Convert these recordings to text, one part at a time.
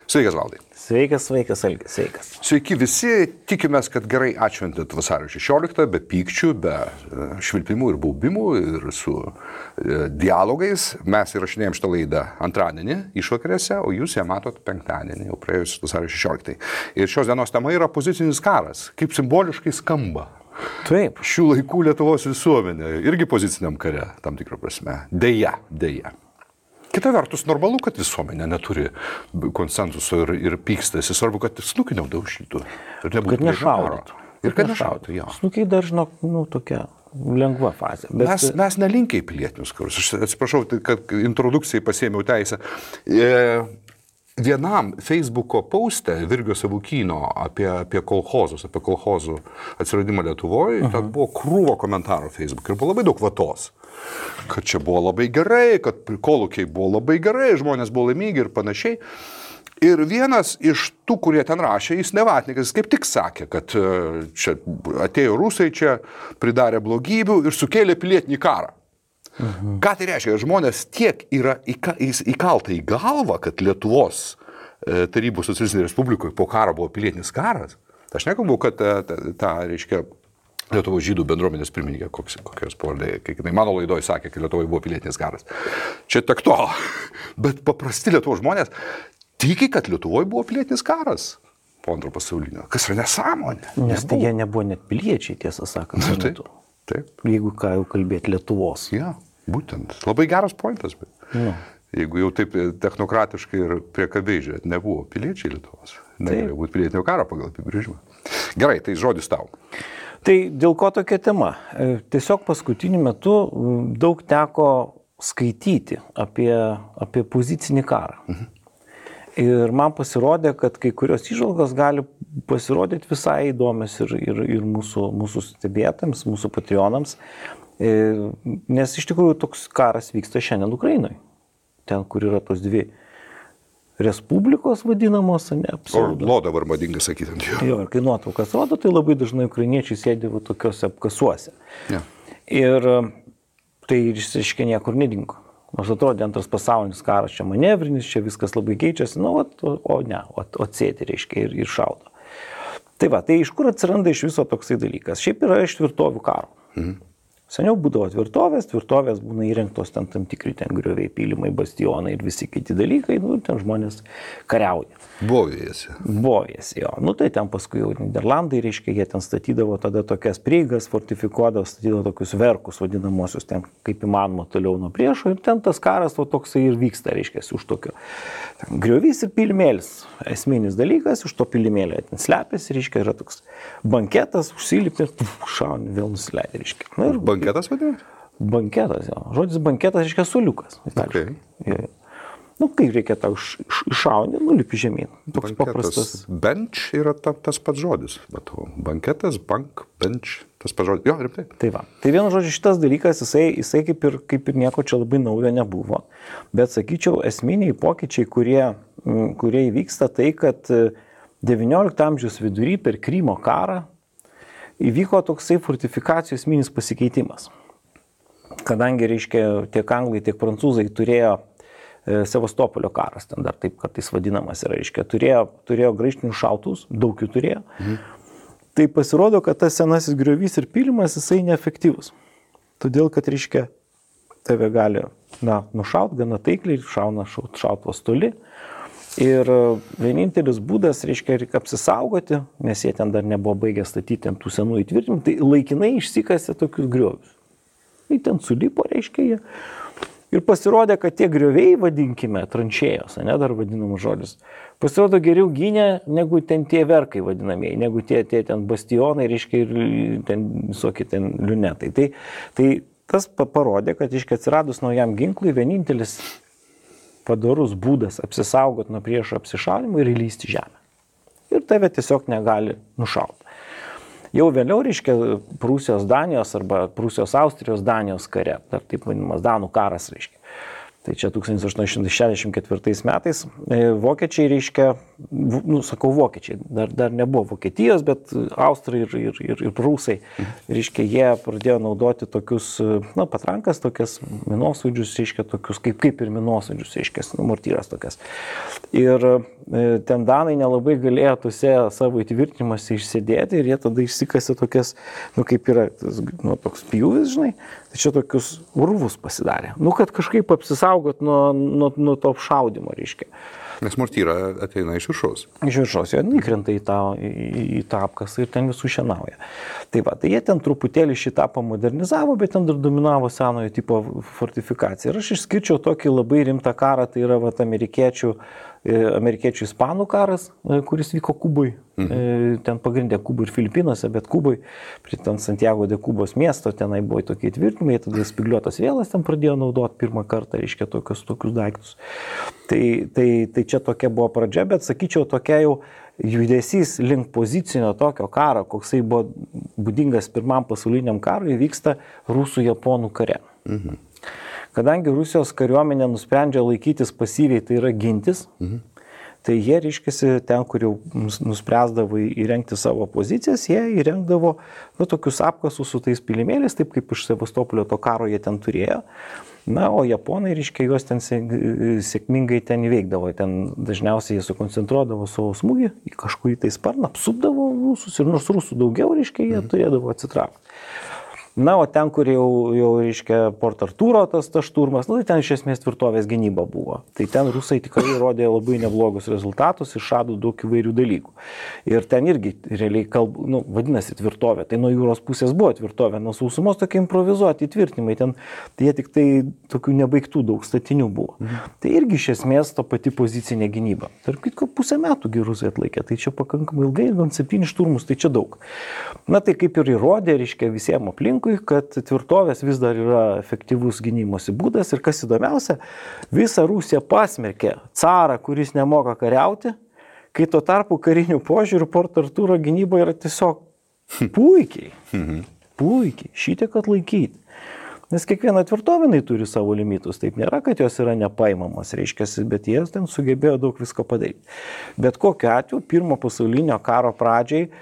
Sveikas, Valdai. Sveikas, Algis, sveikas. Sveiki visi, tikimės, kad gerai atšventėt vasario 16, be pykčių, be švilpimų ir baubimų ir su dialogais. Mes įrašinėjom šitą laidą antradienį išvakarėse, o jūs ją matot penktadienį, jau praėjus vasario 16. Ir šios dienos tema yra pozicinis karas, kaip simboliškai skamba. Taip. Šių laikų Lietuvos visuomenė irgi poziciniam kare, tam tikrą prasme. Deja. Kita vertus, normalu, kad visuomenė neturi konsensuso ir pykstasi. Svarbu, kad snukį neudaužytų. Kad nešaudytų. Ir kad nešaudytų, jo. Snukiai dažno, tokia lengva fazė. Bet... Mes nelinkiai pilietinius karus. Aš atsiprašau, kad introdukcijai pasėmiau teisę. Vienam Facebooko poste Virgio Savukyno apie kolchozus, apie kolchozų atsiradimą Lietuvoje, ten buvo krūvo komentarų Facebook ir buvo labai daug vatos. Kad čia buvo labai gerai, kad kolūkiai buvo labai gerai, žmonės buvo laimingi ir panašiai. Ir vienas iš tų, kurie ten rašė, jis nevatnikas, kaip tik sakė, kad čia atėjo rusai, čia pridarė blogybių ir sukėlė pilietinį karą. Ką tai reiškia? Žmonės tiek yra įkalta į galvą, kad Lietuvos Tarybų Socialistinėje Respublikoje po karo buvo pilietinis karas. Aš nekalbu, kad reiškia, Lietuvos žydų bendruomenės pirmininkė, kokios pavardė, kai mano laidoje sakė, kad Lietuvoje buvo pilietinis karas. Čia tak to, bet paprasti Lietuvos žmonės tiki, kad Lietuvoje buvo pilietinis karas po antro pasaulinio. Kas yra nesąmonė? Nes tai jie nebuvo net piliečiai, tiesą sakant. Taip. Jeigu ką jau kalbėti Lietuvos. Ja, būtent. Labai geras pointas, bet jeigu jau taip technokratiškai ir priekabiai žiūrėt, nebuvo piliečiai Lietuvos. Negalėjo būti pilietinio karo pagal apibrėžimą. Gerai, tai žodis tau. Tai dėl ko tokia tema? Tiesiog paskutiniu metu daug teko skaityti apie pozicinį karą. Ir man pasirodė, kad kai kurios įžvalgos gali pasirodyti visai įdomios ir mūsų stebėtams, mūsų patreonams, nes iš tikrųjų toks karas vyksta šiandien Ukrainoje. Ten, kur yra tos dvi respublikos vadinamos, Orlo dabar madinga sakyti ant jo. Jo, ir kai nuotraukas rodo, tai labai dažnai ukrainiečiai sėdi tokiuose apkasuose. Ja. Ir tai išsiškai niekur nedingo. Nors atrodė antras pasaulinis karas, čia manevrinis, čia viskas labai keičiasi, o sėdi, reiškia, ir šaudo. Tai va, tai iš kur atsiranda iš viso toksai dalykas? Šiaip yra iš tvirtovių karo. Seniau būdavo tvirtovės būna įrengtos ten tam tikri ten grioviai, pylimai, bastionai ir visi kiti dalykai, ten žmonės kariauja. Bovijasi, jo. Tai ten paskui jau Niderlandai, reiškia, jie ten statydavo tada tokias prieigas, fortifikuodavo, statydavo tokius verkus vadinamosius, ten kaip įmanoma toliau nuo priešo ir ten tas karas toksai ir vyksta, reiškia, už tokio. Griovys ir pylimėlis, esminis dalykas, už to pylimėlio ten slepiasi, reiškia, yra toks banketas, užsilipė, šauni, vėl nusileidė, reiškia. Banketas vadinasi? Banketas, jo. Žodis banketas, reiškia, suoliukas. Okay. Kai reikia tau iššauni, nulipi žemyn. Toks banketas, paprastas. Bench yra tas pats žodis. Banketas, bench, tas pats žodis. Jo, rimtai. Tai va. Tai vienu žodžiu, šitas dalykas, jisai kaip ir nieko čia labai naujo nebuvo. Bet sakyčiau, esminiai pokyčiai, kurie įvyksta, tai, kad 19 amžiaus vidury per Krymo karą įvyko toksai fortifikacijų esminis pasikeitimas. Kadangi, reiškia, tiek anglai, tiek prancūzai turėjo Sevastopolio karas, ten dar taip kartais vadinamas yra, reiškia, turėjo graižtinius šautuvus, daug jų turėjo. Tai pasirodo, kad tas senasis griovys ir pylimas, jisai neefektyvus. Todėl, kad, reiškia, tave gali, nušaut gana taikliai, šauna šautuvas toli. Ir vienintelis būdas, reiškia, reikia apsisaugoti, nes jie ten dar nebuvo baigę statyti tų senų įtvirtinimų, tai laikinai išsikasė tokius griovius. Tai ten sulipo, reiškia, jie. Ir pasirodė, kad tie grioviai, vadinkime, tranšėjos, dar vadinamas žodis, pasirodo geriau gynė negu ten tie verkai vadinamieji, negu tie ten bastionai, reiškia, ir ten visokie ten liunetai. Tai tas parodė, kad, reiškia, atsiradus naujam ginklui, vienintelis padorus būdas apsisaugot nuo priešo apsišaudimo ir įlysti žemę. Ir tave tiesiog negali nušauti. Jau vėliau, reiškia, Prūsijos Danijos arba Prūsijos Austrijos Danijos kare, dar taip vadinamas Danų karas, reiškia. Tai čia 1864 metais vokiečiai, reiškia, sakau, vokiečiai, dar nebuvo Vokietijos, bet austrai ir prūsai, reiškia, jie pradėjo naudoti tokius, patrankas, tokias minosvaidžius, reiškia, tokius kaip ir minosvaidžius, reiškia, mortyras tokias. Ir ten danai nelabai galėjo tuose savo įtvirtinimuose išsėdėti ir jie tada išsikasė tokias, kaip yra, toks pjūvis, žinai, tai čia tokius urvus pasidarė. Kad kažkaip apsisaugot nuo to apšaudimo, reiškia. Nes mortyra ateina iš viršaus. Iš viršaus, jie įkrenta į tą apkasą ir ten visų šienauja. Tai jie ten truputėlį šitą pamodernizavo, bet ten dar dominavo senojo tipo fortifikacija. Ir aš išskirčiau tokį labai rimtą karą, tai yra amerikiečių ispanų karas, kuris vyko Kubui. Ten pagrindė Kubui ir Filipinuose, bet Kubui, prie ten Santiago de Kubos miesto, tenai buvo tokie tvirtinimai, tada spygliuotas vėlas ten pradėjo naudoti pirmą kartą, reiškia, tokius daiktus. Tai čia tokia buvo pradžia, bet sakyčiau, tokia jau judesys link pozicinio tokio karo, koksai buvo būdingas pirmam pasauliniam karui, vyksta rusų-japonų kare. Kadangi Rusijos kariuomenė nusprendžia laikytis pasyviai, tai yra gintis, tai jie, reiškiasi, ten, kur jau nuspręsdavo įrengti savo pozicijas, jie įrengdavo tokius apkasus su tais pilimėliais, taip kaip iš Sevastopolio to karo jie ten turėjo. O japonai, reiškia, juos ten sėkmingai ten įveikdavo. Ten dažniausiai jie sukoncentruodavo savo smūgį į kažkurį tai sparną, apsupdavo rusus ir nors rusų daugiau, reiškia, jie turėdavo atsitraukti. O ten, kur jau reiškia, Port Artūro tas šturmas, tai ten iš esmės tvirtovės gynyba buvo. Tai ten rusai tikrai rodė labai neblogus rezultatus, išrado daug įvairių dalykų. Ir ten irgi realiai vadinasi tvirtovė. Tai nuo jūros pusės buvo tvirtovė, nuo sausumos tokie improvizuoti tvirtinimai. Ten jie tik tai tokių nebaigtų daug statinių buvo. Tai irgi iš esmės ta pati pozicinė gynyba. Tarp kitko, 5 metų rusai atlaikė. Tai čia pakankamai ilgai, gan 7 šturmus, tai čia daug. Tai kaip ir įrodė, reiškia, visiems aplinkui, kad tvirtovės vis dar yra efektyvus gynimosi būdas ir kas įdomiausia, visą Rusiją pasmerkė carą, kuris nemoka kariauti, kai tuo tarpu karinių požiūrių Port Artūro gynyba yra tiesiog puikiai, šitiek atlaikyti. Nes kiekviena tvirtovinai turi savo limitus, taip nėra, kad jos yra nepaimamos, reiškia, bet jie ten sugebėjo daug visko padaryti. Bet kokiu atveju, pirmo pasaulinio karo pradžiai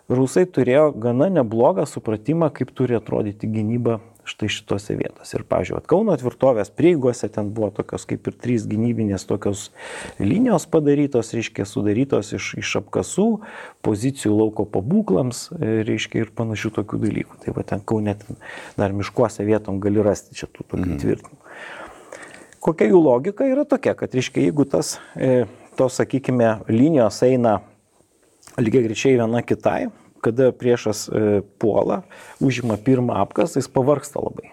rusai turėjo gana neblogą supratimą, kaip turi atrodyti gynyba štai šitose vietose. Ir, pavyzdžiui, Kauno tvirtovės prieigose ten buvo tokios kaip ir 3 gynybinės tokios linijos padarytos, reiškia, sudarytos iš apkasų, pozicijų lauko pabūklams, reiškia, ir panašių tokių dalykų. Tai ten Kaune dar miškuose vietom gali rasti čia tų tokių tvirtinimų. Kokia jų logika yra tokia, kad, reiškia, jeigu tos, sakykime, linijos eina lygiai greičiai viena kitai, kada priešas puola, užima pirmą apkasą, jis pavargsta labai.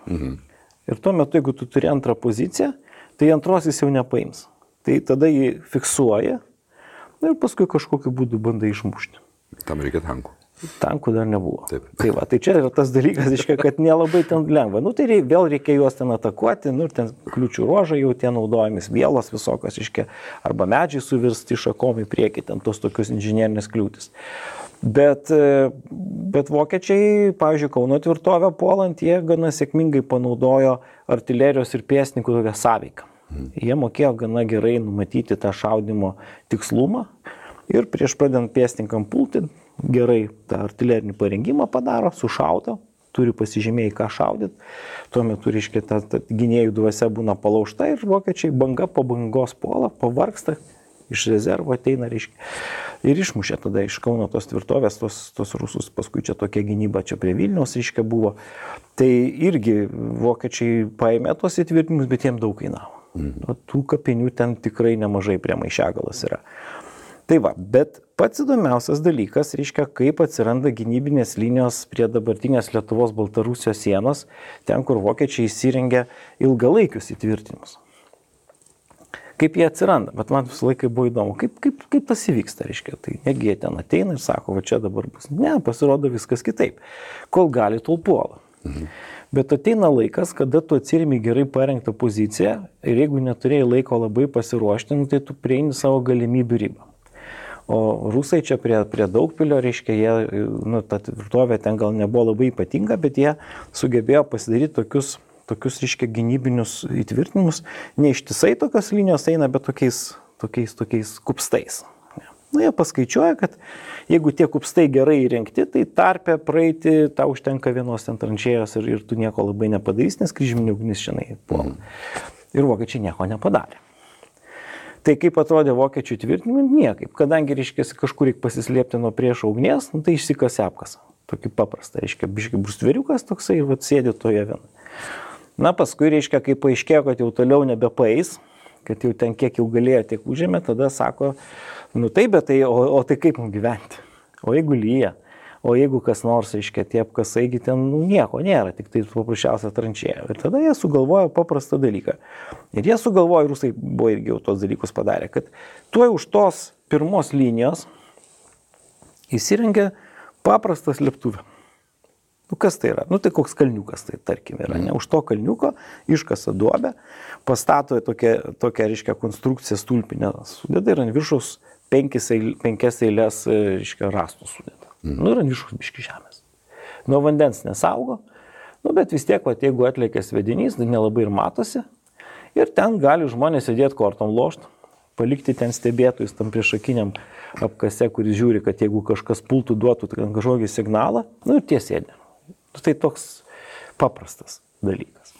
Ir tuo metu, jeigu tu turi antrą poziciją, tai antros jis jau nepaims. Tai tada jį fiksuoja ir paskui kažkokiu būdu bandai išmušti. Tam reikia tankų. Tankų dar nebuvo. Taip. Tai čia yra tas dalykas, reiškia, kad nelabai ten lengva. Tai vėl reikia juos ten atakuoti, ir ten kliūčių ruožai jau tie naudojamis, vielos visokios, reiškia, arba medžiai suvirsti šakom į priekį, ten tos tokius inžinierinės kliūtis. Bet vokiečiai, pavyzdžiui, Kauno tvirtovę puolant, jie gana sėkmingai panaudojo artilerijos ir pėstininkų tokią sąveiką. Jie mokėjo gana gerai numatyti tą šaudimo tikslumą ir prieš pradedant pėstininkam pulti, gerai tą artilerinį parengimą padaro, sušaudo, turi pasižymėjai, ką šaudyti. Tuo metu, reiškia, ta gynėjų dvasia būna palaužta ir vokiečiai banga po bangos puola, pavargsta, iš rezervo ateina, reiškia, ir išmušė tada iš Kauno tos tvirtovės, tos rusus, paskui čia tokia gynyba čia prie Vilniaus, reiškia, buvo. Tai irgi vokiečiai paėmė tos įtvirtinimus, bet jiems daug kainavo. Tų kapinių ten tikrai nemažai prie Maišiagalos yra. Tai bet pats įdomiausias dalykas, reiškia, kaip atsiranda gynybinės linijos prie dabartinės Lietuvos-Baltarusijos sienos, ten, kur vokiečiai įsirengia ilgalaikius įtvirtinimus. Kaip jie atsiranda, bet man visą laiką buvo įdomu, kaip tas įvyksta, reiškia. Tai negi jie ten ateina ir sako, va čia dabar bus. Ne, pasirodo viskas kitaip. Kol gali, tol puola. Bet ateina laikas, kada tu atsirimi gerai parengtą poziciją ir jeigu neturėjai laiko labai pasiruošti, tai tu prieini savo galimybių ribą. O rusai čia prie Daugpilio, reiškia, jie, ta tvirtovė ten gal nebuvo labai ypatinga, bet jie sugebėjo pasidaryti tokius, reiškia, gynybinius įtvirtinimus. Ne ištisai tokios linijos eina, bet tokiais kupstais. Nu, jie paskaičiuoja, kad jeigu tie kupstai gerai įrengti, tai tarpe praeiti tau užtenka vienos ten tranšėjos ir tu nieko labai nepadarys, nes kryžminė ugnis šiandien puola. Ir vokiečiai nieko nepadarė. Tai kaip atrodė vokiečių tvirtinimai? Niekaip. Kadangi, reiškia, kažkur reikia pasislėpti nuo priešo ugnies, nu, tai išsikasė apkasą. Tokį paprastą, reiškia, biškai brustveriukas toksai ir sėdi toje vienoje. Na, paskui, reiškia, kai paaiškėjo, kad jau toliau nebepaeis, kad jau ten kiek jau galėjo, tiek užėmė, tada sako, nu taip, bet tai, o tai kaip mums gyventi? O jeigu lyja? O jeigu kas nors, reiškia, tie apkasaigi ten nieko nėra, tik tai paprasčiausia tranšėja. Ir tada jie sugalvojo paprastą dalyką. Ir jie sugalvojo, rusai buvo irgi jau tos dalykus padarę, kad tuoj už tos pirmos linijos įsirengė paprastą slėptuvę. Nu kas tai yra? Nu tai koks kalniukas tai tarkim yra. Ne? Už to kalniuko iškasa duobę, pastato tokią reiškia, konstrukciją stulpinę sudeda ir ant viršaus penkias eilės reiškia, rastų sudeda. Nu ir ant viršaus biški žemės. Nuo vandens nesaugo, nu bet vis tiek, jeigu atlėkė svedinys, tai nelabai ir matosi. Ir ten gali žmonės sėdėti kortom lošt, palikti ten stebėtojus tam priešakiniam apkase, kuris žiūri, kad jeigu kažkas pultų, duotų kažkokį signalą, nu ir tie sėdė. Tai toks paprastas dalykas.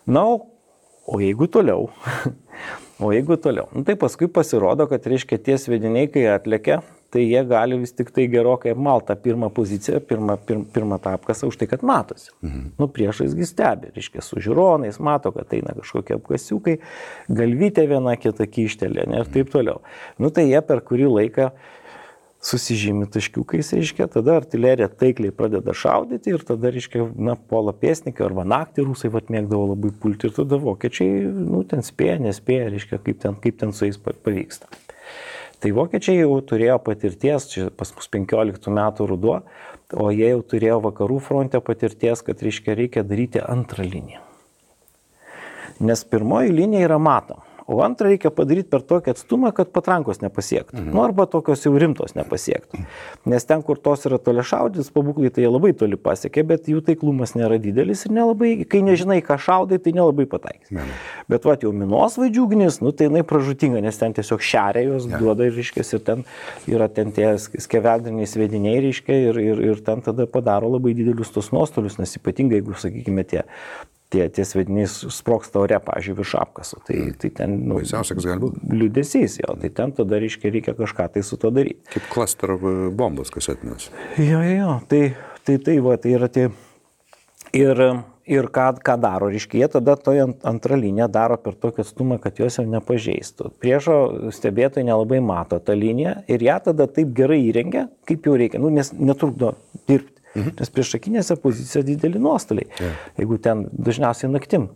Na, o jeigu toliau, nu tai paskui pasirodo, kad reiškia tie svediniai, kai atlėkia, tai jie gali vis tik tai gerokai apmaltą pirmą poziciją, pirmą tą apkasą už tai, kad matosi. Nu, priešaisgi stebi, reiškia, su žiūronais, mato, kad eina kažkokie apkasiukai, galvytė viena kita kyštelė, ir taip toliau. Nu, tai jie per kurį laiką susižymi taškiukais, reiškia, tada artilerija taikliai pradeda šaudyti ir tada, reiškia, puola pėsnikai arba naktį rusai mėgdavo labai pulti ir tada vokiečiai, nu, ten spėja, nespėja, reiškia, kaip ten su jais pavyksta. Tai vokiečiai jau turėjo patirties, čia pas mus 15 metų ruduo, o jie jau turėjo vakarų fronte patirties, kad reikia daryti antrą liniją. Nes pirmoji linija yra matoma, o antrą reikia padaryti per tokį atstumą, kad patrankos nepasiektų. Nu, arba tokios jau rimtos nepasiektų. Nes ten, kur tos yra toli šaudys, pabūklai tai jie labai toli pasiekė, bet jų taiklumas nėra didelis ir nelabai, kai nežinai, ką šaudai, tai nelabai pataikys. Bet jau minosvaidžių ugnis, nu tai jinai pražutinga, nes ten tiesiog šeria jos, duoda ir reiškės, ir ten yra ten tie skeveldriniai svediniai, reiškia, ir ten tada padaro labai didelius tos nuostolius, nes ypatingai, jeigu, sakykime, tie svediniai sprogsta ore, pavyzdžiui, virš apkaso. Tai ten, nu, liūdesys, jo, tai ten tada, reikia kažką tai su to daryti. Kaip klaster bombos kasetinės. Jo, tai yra tie. Ir ką daro, reiškia, jie tada toje antrą liniją daro per tokį atstumą, kad jos jau nepažeistų. Priešo stebėtojai nelabai mato tą liniją ir ją tada taip gerai įrengia, kaip jau reikia, nu, nes netrukdo dirbti. Nes priešakinėse pozicijose dideli nuostoliai. Jeigu ten dažniausiai naktim.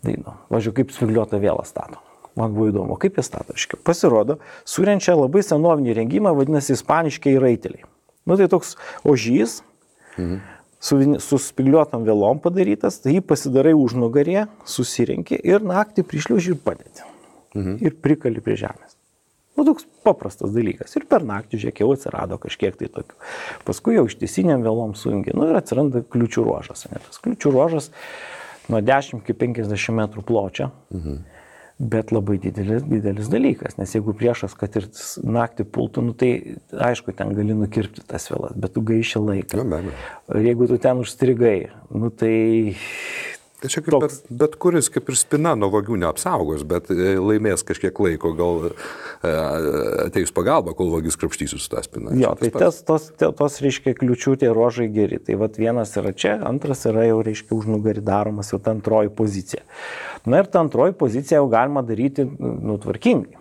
Tai, važiuoju, kaip spigliuotą vėlą stato. Man buvo įdomu, kaip jie stato. Pasirodo, surenčia labai senovinį rengimą, vadinasi ispaniškiai raiteliai. Nu, tai toks ožys, su spigliuotam vėlom padarytas, tai jį pasidarai užnugarėje, susirenki ir naktį prišliauži ir padėti. Ir prikali prie žemės. Nu, toks paprastas dalykas. Ir per naktį, žiūrėk, jau atsirado kažkiek tai tokių. Paskui jau ištisiniam vėlom sujungi. Nu, ir atsiranda kliučių ruožas. Tas kliučių ruožas nuo 10 iki 50 metrų pločio, bet labai didelis dalykas. Nes jeigu priešas, kad ir naktį pultų, nu, tai aišku, ten gali nukirpti tas vėlas, bet tu gaiši laiką. Ir jeigu tu ten užstrigai, nu, tai... Tai čia kaip bet kuris kaip ir spina nuo vagių neapsaugos, bet laimės kažkiek laiko, gal ateis pagalba, kol vagis krapštysis su tą spiną. Jo, tai tos reiškia kliučių tie ruožai geri. Tai vienas yra čia, antras yra jau reiškia užnugarį daromas jau ta antroji pozicija. Na ir ta antroji pozicija jau galima daryti tvarkingai.